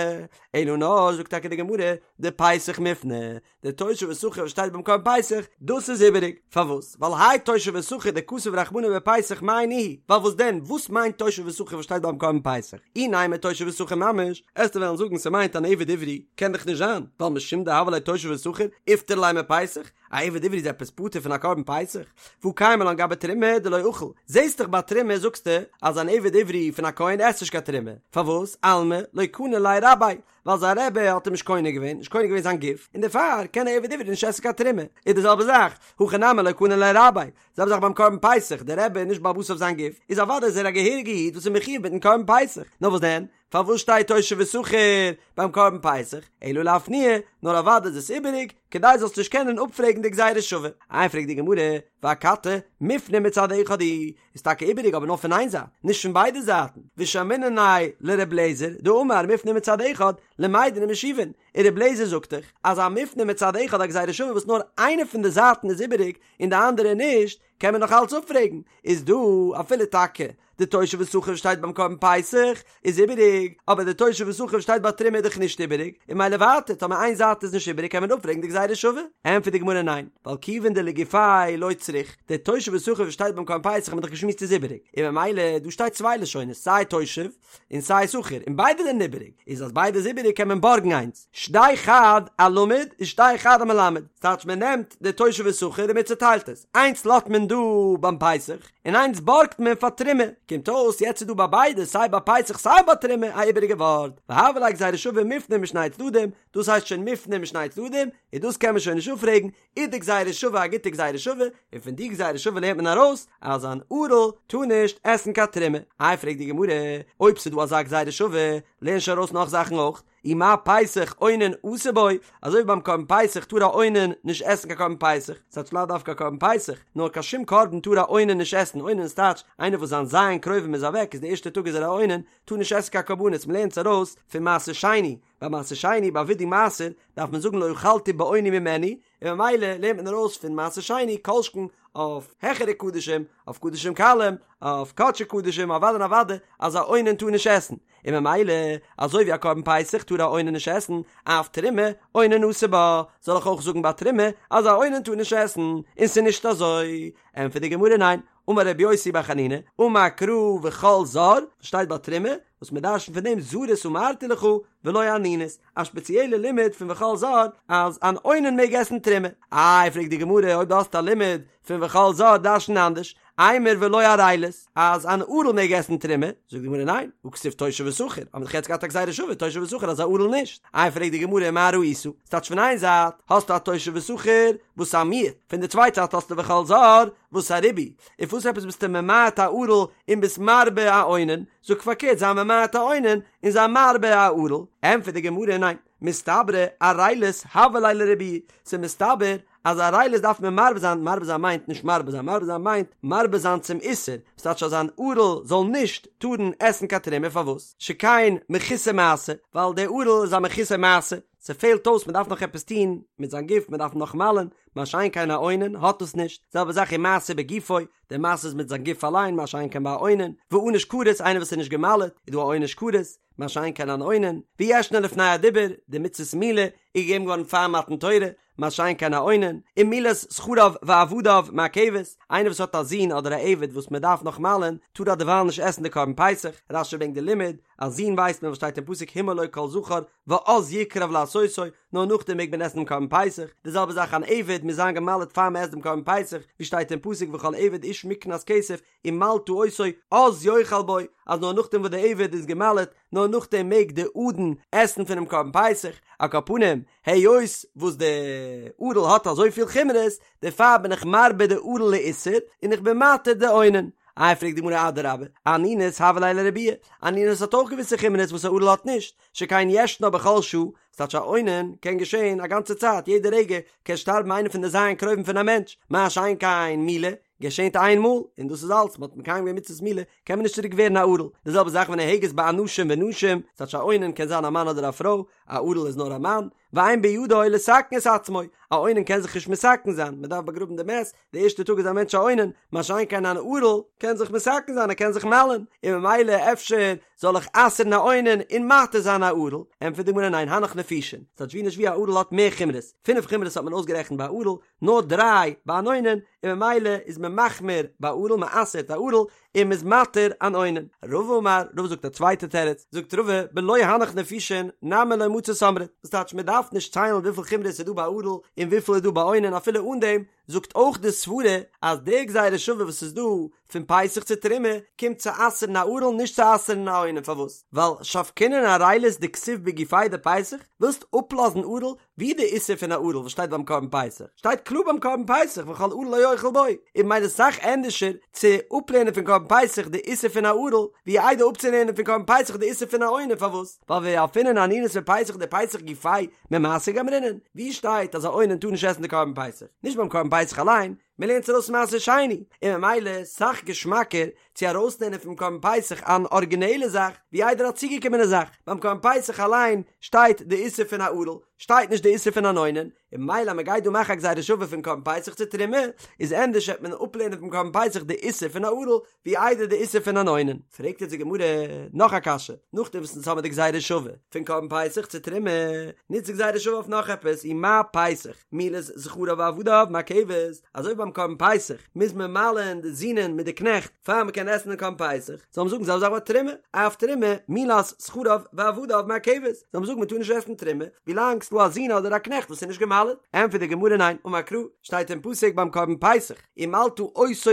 אלא נאר, זאגט טאקע די גמרא, דפסח מופנה, די תושב ושכיר וואס שטייט ביים קרבן פסח, דאס איז איבעריג. פארוואס? ווייל האי תושב ושכיר דכתב רחמנא בפסח מאי ניהו ווייל וואס דען, וואס מיינט תושב ושכיר וואס שטייט ביים קרבן פסח? אי נימא תושב ושכיר ממש, עסטו וועלן זאגן ס'מיינט אן עבד עברי, קען דאך נישט זיין, ווייל משום דהוה ליה תושב ושכיר, איפטר ליה מפסח, א עבד עברי איז עפעס פטור פון א קרבן פסח? והא קיימא לן גבי תרומה דלא אכיל, זעסט דאך ביי תרומה זאגסטו אז אן עבד עברי פון א כהן עסט נישט קיין תרומה, פארוואס? אלמא לא קני ליה רביה, ווייל זיין רבי האט אים נישט קונה געווען, נישט קונה געווען זיין גוף, און דערפאר קען א עבד עברי נישט עסן קיין תרומה, איז די זעלבע זאך, הכא נמי לא קני ליה רביה, זעלבע זאך ביים קרבן פסח, דער רבי איז נישט בעל הבית אויף זיין גוף, איז אוודאי איז ער א געהעריגע איד וואס איז מחיוב מיטן קרבן פסח, נאר וואס דען? פארוואס שטייט תושב ושכיר ביים קרבן פסח? אלא לאפנויי, נאר אוודאי איז עס איבעריג, כדי זאלסט נישט קענען אפפרעגן די גזירה שווה. איי פרעגט די גמרא, ואכתי, מופנה מצד אחד הוא, איז טאקע איבעריג אבער נאר פון איין זייט, נישט פון ביידע זייטן, ושמעינן ליה לר' אליעזר, דאמר מופנה מצד אחד, למדין ומשיבין, און ר' אליעזר זאגט דאך אז א מופנה מצד אחד א גזירה שווה וואס נאר איינע פון די זייטן איז איבעריג און די אנדערע נישט, קען מען נאך אלץ אפפרעגן, איז דא אפילו טאקע די תושב ושכיר שטייט ביים קרבן פסח איז איבעריג, אבער די תושב ושכיר שטייט ביי תרומה איז דאך נישט איבעריג, און ממילא ווייטער טאמער איין זייט איז נישט איבעריג קען מען אפפרעגן די גזירה שווה? ענטפערט די גמרא ניין, ווייל כיוון דלגופיה לא צריך, די תושב ושכיר וואס שטייט ביים קרבן פסח האט מען דאך געשמועסט איז איבעריג, און ממילא דא שטייט צוויי לשונות סיי תושב און סיי שכיר און ביידע זענען איבעריג, איז אז ביידע איז איבעריג קען מען בארגן איינס, שדי חד אלמד ושדי חד אמלמד, ס'טייטש מען נעמט די תושב ושכיר און מען צוטיילט עס, איינס לאזט מען דא ביים פסח, און איינס בארגט מען פאר תרומה, קומט אויס יעצט איז דא ביי ביידע סיי ביי פסח סיי ביי תרומה א איבעריגע ווארט, והוה ליה גזירה שווה מופנה משני צדדים, דאס הייסט שוין מופנה משני צדדים, און דאס קען מען שוין נישט אפפרעגן, איז די גזירה שווה א גוטע גזירה שווה, און פון די גזירה שווה לערנט מען ארויס אז אן ערל טאר נישט עסן קיין תרומה. איי פרעגט די גמרא, אויב ס'איז דא אזא גזירה שווה, לערן שוין ארויס נאך זאכן אויך, אי מה פסח אונן אסור בו, אזוי ווי ביים קרבן פסח טאר א אונן נישט עסן קיין קרבן פסח, ס'טייטש לאו דווקא קרבן פסח, נאר קיין שום קרבן טאר א אונן נישט עסן, אונן איז טייטש איינער וואס זיין ז' קרובים איז אוועק איז די ערשטע טאג איז ער א אונן, טאר נישט עסן קיין קרבנות, מ'לערנט עס ארויס פון מעשר שני, ביי מעשר שני ביי וידוי מעשר דארף מען זאגן לא אכלתי באוני ממנו, און ממילא לערנט מען ארויס פון מעשר שני כל שכן אויף העכערע קדשים, אויף קדשים קלים, אויף קדשי קדשים, אוודאי און אוודאי אז א אונן טאר נישט עסן, און ממילא אזוי ווי א קרבן פסח טאר א אונן נישט עסן, אף תרומה אונן אסור בה, זאל איך אויך זאגן ביי תרומה אז א אונן טאר נישט עסן, און ס'איז נישט אזוי? ענטפערט די גמרא ניין, אמר רבי יוסי בר חנינא, אמר קרא וכל זר, שטייט ביי תרומה, וואס מען דרש'נט פון דעם זרות אמרתי לך ולא אנינות, א שפעציעלע לימוד פון וכל זר אז אן אונן מעג עסן תרומה. איי פרעגט די גמרא אויב דו האסט א לימוד פון וכל זר דרש'ן אנדערש, אימר ולא ערלות, אז אן ערל מעג עסן תרומה, זאגט די גמרא ניין, הא כתיב תושב ושכיר, האבן מיר דאך יעצט געהאט א גזירה שווה תושב ושכיר אז א ערל נישט, איי פרעגט די גמרא מה ראית, ס'טייטש פון איין זייט האסטו א תושב ושכיר וואס איז א מיעוט, פון די צווייטע זייט האסטו וכל זר וואס א ריבוי, און פארוואס עפעס ביסטו ממעט א ערל און ביסט מרבה א אונן, זאג פארקערט זיי ממעט א אונן און זיי מרבה א ערל, ענטפערט די גמרא ניין, מסתברא ערלות הוה ליה לריבויי, ס'איז מסתבר אז ערלות דארף מען מרבה זיין, מרבה זיין מיינט נישט מרבה זיין, מרבה זיין מיינט מרבה זיין צום איסור, ס'טייטש אז אן ערל זאל נישט טארן עסן קיין תרומה, פארוואס? שכן מחוסר מעשה, ווייל דער ערל איז א מחוסר מעשה. ס'פעלט אויס מ'דארף נאך עפעס טון מיט זיין גוף מ'דארף נאך מל'ען, מה שאין כן א אונן האט דאס נישט, זעלבע זאך ומעשה בגופו, די מעשה איז מיט זיין גוף אליין מה שאין כן ביי א אונן, וענוש כרת איינער וואס איז נישט גע'מל'עט איז דא א עונש כרת, מה שאין כן אן אונן, וישנה לפני הדיבור, די מצות מילה איז געגעבן געווארן פאר מתן תורה, מה שאין כן א אונן, ומילת זכריו ועבדיו מעכבת, איינער וואס האט א זון אדער א עבד וואס מען דארף נאך מל'ען, טאר ער דערווייל נישט עסן די קרבן פסח, רש"י ברענגט די לימוד, א זון ווייסט מען וואס שטייט אין פסוק המול לו כל זכר, ואז יקרב לעשותו, נאר נאכדעם מעג מען עסן דעם קרבן פסח, די זעלבע זאך אן עבד מוז זיין גע'מל'עט פאר מען עסט דעם קרבן פסח, ווי שטייט אין פסוק וכל עבד איש מקנת כסף, ומלתה אותו אז יאכל בו, אז נאר נאכדעם וואס די עבד איז גע'מל'עט, נאר נאכדעם מעג די אדון עסן פונעם קרבן פסח, על כל פנים, היות וואס די ערל האט אזויפיל חומרות, דערפאר בין איך מרבה די ערל לאיסור, און איך בין מתיר די אונן. איי פרעגט די גמרא אדרבה, אנינות הוה ליה לרבויי, אנינות האט אויך געוויסע חומרות וואס א ערל האט נישט, שכן ישנה בכל שעה, ס'טייטש א אונן קען געשען א גאנצע צייט, יעדע רגע קען שטארבן איינער פון די ז' קרובים פון א מענטש, מה שאין כן מילה, געשענט איין מאל, און דאס איז אלץ, מ'האט מקיים געווען מצוות מילה, קען מען נישט צוריק ווערן א ערל. די זעלבע זאך ונוהגת באנשים ונשים, ס'טייטש א אונן קען זיין א מאן אדער א פרוי, א ערל איז נאר א מאן, ואין בידו לתקן את עצמו, א אונן קען זיך נישט מתקן זיין, מ'דארף באגראבן די מת, די ערשטע טאג איז א מענטש א אונן, מה שאין כן אן ערל קען זיך מתקן זיין, ער קען זיך מל'ן, און ממילא אפשר זאל איך אסר'ן א אונן און מתיר זיין א ערל? ענטפערט די גמרא ניין הנך נפישין, ס'טייטש ווי נישט ווי א ערל האט מער חומרות, פינף חומרות האט מען אויסגערעכנט ביי א ערל, נאר דריי ביי אן אונן, און ממילא איז מען מחמיר ביי ערל, מען אסר'ט א ערל, און מען איז מתיר אן אונן. רבא אמר, רבא זאגט א צווייטע תירוץ, זאגט רבא, בלא הנך נפישין, נמי לא מצית אמרת, דאס טייטש מען דארף נישט ציילן וויפיל חומרות איז דא ביי ערל און וויפיל איז דא ביי אונן אפילו אן דעם, זאגט אויך די סברה אז די גזירה שווה וואס איז דא פון פסח צו תרומה קומט צו אסר'ן א ערל נישט צו אסר'ן א אונן פארוואס? ווייל שבקינן ערילות דכתיב בגופיה דפסח, ווילסט אפלאזן ערל ווי די איסור פון א ערל וואס שטייט ביים קרבן פסח? שטייט קלאר ביים קרבן פסח וכל ערל לא יאכל בו, און ממילא סאך ענדערשער צו אפלערנען פון קרבן פסח די איסור פון א ערל ווי איידער אפצולערנען פון קרבן פסח די איסור פון א אונן פארוואס? ווייל וילפינן אנינות מפסח דפסח גופיה ממעשר גמרינן, ווי שטייט אז א אונן טאר נישט עסן די קרבן פסח? נישט ביים קרבן פסח אליין, מען לערנט עס ארויס פון מעשר שני, און ממילא סאך געשמאקער צו ארויסלערנען פון קרבן פסח אן ארגינעלע זאך ווי איידער א צוגעקומענע זאך, ביים קרבן פסח אליין שטייט די איסור פון א ערל, שטייט נישט די איסור פון אן אונן, און ממילא אז מען גייט דא מאכן א גזירה שווה פון קרבן פסח צו תרומה, איז ענדערש וועט מען אפלערנען פון קרבן פסח די איסור פון א ערל, ווי איידער די איסור פון אן אונן. פרעגט יעצט די גמרא נאך א קשיא, נאכדעם וואס אונז האבן די גזירה שווה פון קרבן פסח צו תרומה, נוצט די גזירה שווה אויף נאך עפעס, ומה פסח, מילת זכריו ועבדיו מעכבת, אזוי ווי ביים קרבן פסח מוז מען מל'ען די זינען מיט די קנעכט פאר מען קען עסן דעם קרבן פסח, זאל מען זאגן זעלבע זאך ביי תרומה, אף תרומה, מילת זכריו ועבדיו מעכבת, זאל מען זאגן מען טאר נישט עסן תרומה ווילאנג ס'דא א זון אדער א קנעכט וואס איז נישט גע'מל'עט, ענטפערט די גמרא ניין, אמר קרא, שטייט אין פסוק ביים קרבן פסח, ומלתה אותו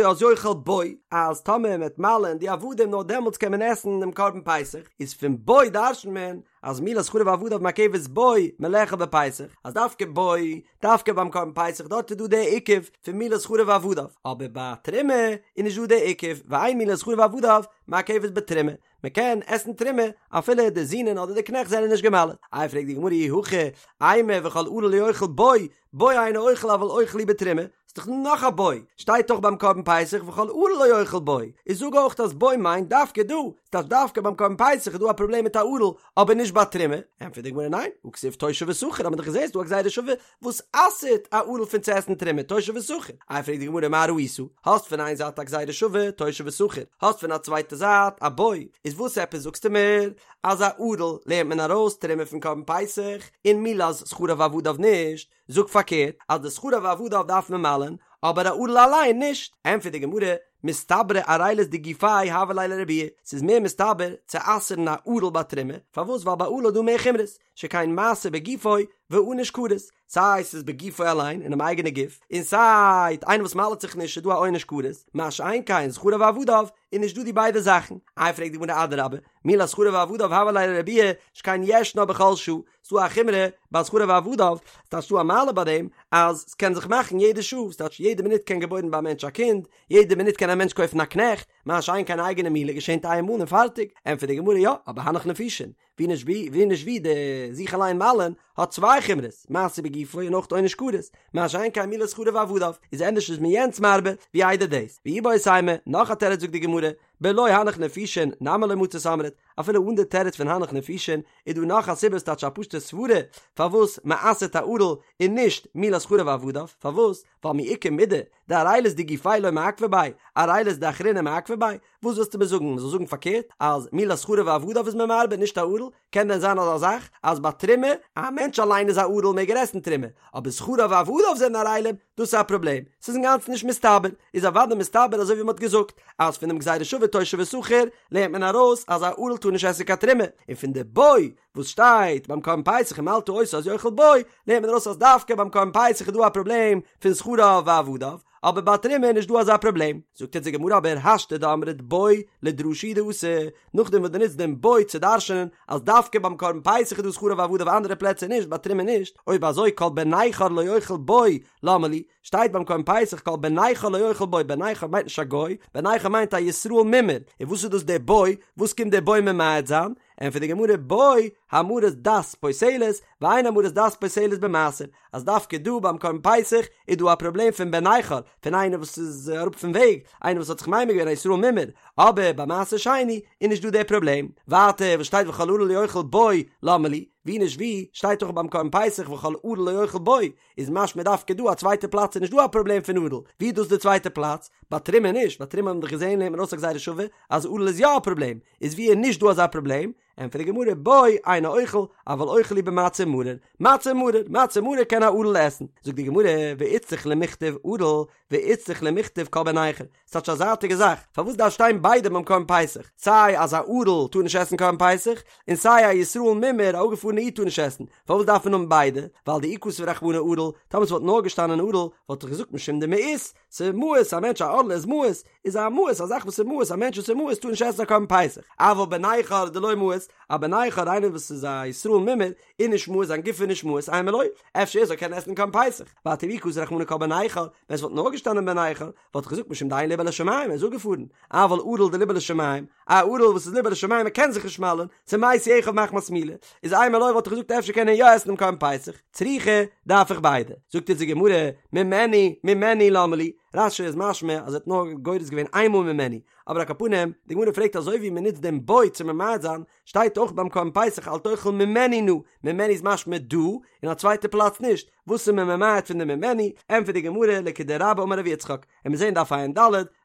אז יאכל בו, אז טאמער מ'וועט מל'ען די עבדים נאר דעמאלטס קען מען עסן דעם קרבן פסח, איז פון בו דרש'נט מען אז מילת זכריו ועבדיו מעכבת בו מלאכול בפסח, אז דווקא בו, דווקא ביים קרבן פסח דארט איז דא די עיכוב פון מילת זכריו ועבדיו, אבער ביי תרומה איז נישט דא די עיכוב, ואין מילת זכריו ועבדיו מעכבת בתרומה, מען קען עסן תרומה אפילו די זינען אדער די קנעכט זענען נישט גע'מל'עט. איי פרעגט די גמרא אי הכי אימא וכל ערל לא יאכל בו, בו אינו אוכל אבל אוכל הוא בתרומה, ס'איז דאך נאך א בו, שטייט דאך ביים קרבן פסח וכל ערל לא יאכל בו, איז זאג אויך אז בו מיינט דווקא דא, ס'טייטש דווקא ביים קרבן פסח איז דא א פראבלעם מיט א ערל, אבער נישט ביי תרומה, ענטפערט די גמרא ניין, הא כתיב תושב ושכיר, האט מען דאך געזען ס'דא א גזירה שווה וואס אסר'ט א ערל פון צו עסן תרומה, תושב ושכיר, איי פרעגט די גמרא מה ראית, האסט פון איין זייט א גזירה שווה, תושב ושכיר, האסט פון א צווייטע זייט א בו, איז וואס עפעס זאגסטו מיר אז א ערל לערנט מען ארויס תרומה פון קרבן פסח און מילת זכריו ועבדיו נישט, זאג פארקערט אז די זכריו ועבדיו דארף מען מל'ען אבער א ערל אליין נישט, ענטפערט די גמרא, מסתברא ערילות דגופיה הוה ליה לרבויי, ס'איז מער מסתבר צו אסר'ן א ערל ביי תרומה, פארוואס ווייל ביי ערל איז דא מער חומרות, שכן מעשה בגופו וענוש כרת, סיי ס'איז בגופו אליין אינעם אייגענע גוף, און סיי איינער וואס מל'ט זיך נישט איז דא א עונש כרת, מה שאין כן זכריו ועבדיו איז נישט דא די ביידע זאכן, איי פרעגט די גמרא אדרבה, מילת זכריו ועבדיו הוה ליה לרבויי, שכן ישנה בכל שעה, ס'דא א חומרא ביי זכריו ועבדיו, ס'טייטש ס'דא א מעלה ביי דעם אז ס'קען זיך מאכן יעדע שעה, ס'טייטש יעדע מינוט קען געבוירן ביי א מענטש א קינד, יעדע מינוט קען א מענטש קויפן א קנעכט, מה שאין כן אייגענע מילה געשענט איין מאל און פארטיג, ענטפערט די גמרא יא, אבער הנך נפישין, ווי נישט ווי, ווי נישט ווי די זיך אליין מל'ען האט צוויי חומרות, מעשה בגופו און אויך עונש כרת, מה שאין כן מילת זכריו ועבדיו, איז ענדערש איז מען יענץ מרבה ווי איידער דאס, ואיבעית אימא, נאך א תירוץ זאגט די גמרא, בלא הנך נפישין נמי לא מצית אמרת, אפילו אן די תירוץ פון הנך נפישין איז דא נאך א סיבה ס'טייטש א פשוטע סברה פארוואס מ'אסר'ט א ערל און נישט מילת זכריו ועבדיו, פארוואס? ווייל מי איכא מידי דערילות דגופיה לא מעכבא ביה, ערילות דאחריני מעכבא ביה, וואס ווילסטו מיר זאגן? מ'זאל זאגן פארקערט אז מילת זכריו ועבדיו איז מען מרבה נישט א ערל? קען דען זיין אזא זאך אז ביי תרומה א מענטש אליין איז א ערל מעג ער עסן תרומה אבער זכריו ועבדיו זענען ערלים דאס איז א פראבלעם ס'איז אינגאנצן נישט מסתבר איז אוודאי מסתבר אזוי ווי מ'האט געזאגט אז פון דעם גזירה שווה תושב ושכיר לערנט מען ארויס אז א ערל טאר נישט עסן קיין תרומה און פון די בו וואס שטייט ביים קרבן פסח ומלתה אותו אז יאכל בו לערנט מען ארויס אז דווקא ביים קרבן פסח איז דא א פראבלעם פון זכריו ועבדיו אבער ביי תרומה איז נישט דא אזא פראבלעם. זאגט אונז די גמרא אבער השתא דאמרת בו לדרשה הוא דאתא, נאכדעם וואס דו נוצט דעם בו צו דרש'נען אז דווקא ביים קרבן פסח איז דא זכריו ועבדיו אנדערע פלעצער נישט ביי תרומה נישט, אויב אזוי כל בן נכר לא יאכל בו למה לי, שטייט ביים קרבן פסח כל בן נכר לא יאכל בו, בן נכר מיינט נישט א גוי, בן נכר מיינט א ישראל מומר, און וואס איז דאס דער בו, וואס קומט דער בו ממעט זיין? ענטפערט די גמרא בו המרת דת פוסלת ואין המרת דת פוסלת במעשר, אז דווקא דא ביים קרבן פסח איז דא א פראבלעם פון בן נכר, פון איינער וואס איז אראפ פון וועג, איינער וואס האט זיך ממיר געווען א ישראל מומר, אבער ביי מעשר שני איז נישט דא דער פראבלעם. ווייטער וואס שטייט וכל ערל לא יאכל בו למה לי, ווי נישט ווי שטייט דאך ביים קרבן פסח וכל ערל לא יאכל בו, איז משמע דווקא דא א צווייטע פלאץ איז נישט דא א פראבלעם פון ערל, ווי איז דאס די צווייטע פלאץ? ביי תרומה נישט, ביי תרומה האט מען דאך געזען לערנט מען ארויס א גזירה שווה אז ערל איז יא א פראבלעם, איז ווי איז נישט דא אזא פראבלעם? ענטפערט די גמרא בו אינו אוכל אבל אוכל הוא במצה ומרור, מצה ומרור, מצה ומרור קען א ערל עסן, זאגט די גמרא ואיצטריך למיכתב ערל ואיצטריך למיכתב כל בן נכר, ס'טייטש א זייטיגע זאך, פארוואס דארף שטיין ביידע ביים קרבן פסח, סיי אז א ערל טאר נישט עסן קרבן פסח, און סיי א ישראל מומר א אפגעפארענע איד טאר נישט עסן, פארוואס דארף מען האבן ביידע, ווייל דאי כתב רחמנא ערל, טאמער ס'וואלט נאר געשטאנען ערל, וואלט איך געזאגט משום דמאיס, ס'מיאוס, א מענטש א ערל איז מיאוס, איז א מיאוס, א זאך וואס איז מיאוס, א מענטש וואס איז מיאוס טאר נישט עסן א קרבן פסח, אבל בן נכר דלא מאיס, א בן נכר איינער וואס איז א ישראל מומר, איז נישט מיאוס, זיין גוף איז נישט מיאוס, אימא לא, אפשר ער זאל קענען עסן קרבן פסח, ווייטער ואי כתב רחמנא כל בן נכר, ווען ס'וואלט נאר געשטאנען בן נכר, וואלט איך געזאגט משום דאין לבו לשמים, ער איז אפגעפארן, אבל ערל דליבו לשמים, א ערל וואס איז ליבו לשמים ער קען זיך נישט מל'ן, ס'מתו אחיו מחמת מילה, איז אימא לא וואלט איך געזאגט אפשר קען ער יא עסן דעם קרבן פסח, צריכא, דארף איך ביידע. זאגט אונז די גמרא, ממנו, ממנו למה לי, רש"י איז משמע אז ער האט נאר גורס געווען איינמאל ממנו, אבער על כל פנים, די גמרא פרעגט אזוי ווי מען נוצט דעם בו צו ממעט זיין, שטייט אויך ביים קרבן פסח אל תאכל ממנו נא, ממנו איז משמע דא, און א צווייטע פלאץ נישט, וואס איז מען ממעט פון די ממנו, ענטפערט די גמרא לכדרבה אמר רב יצחק, און מיר זעהן דף ע"ד,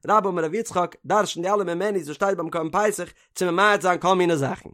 רבה אמר רב יצחק, דרש'ן די אלע ממנו'ס וואס שטייט ביים קרבן פסח צו ממעט זיין כל מיני זאכן.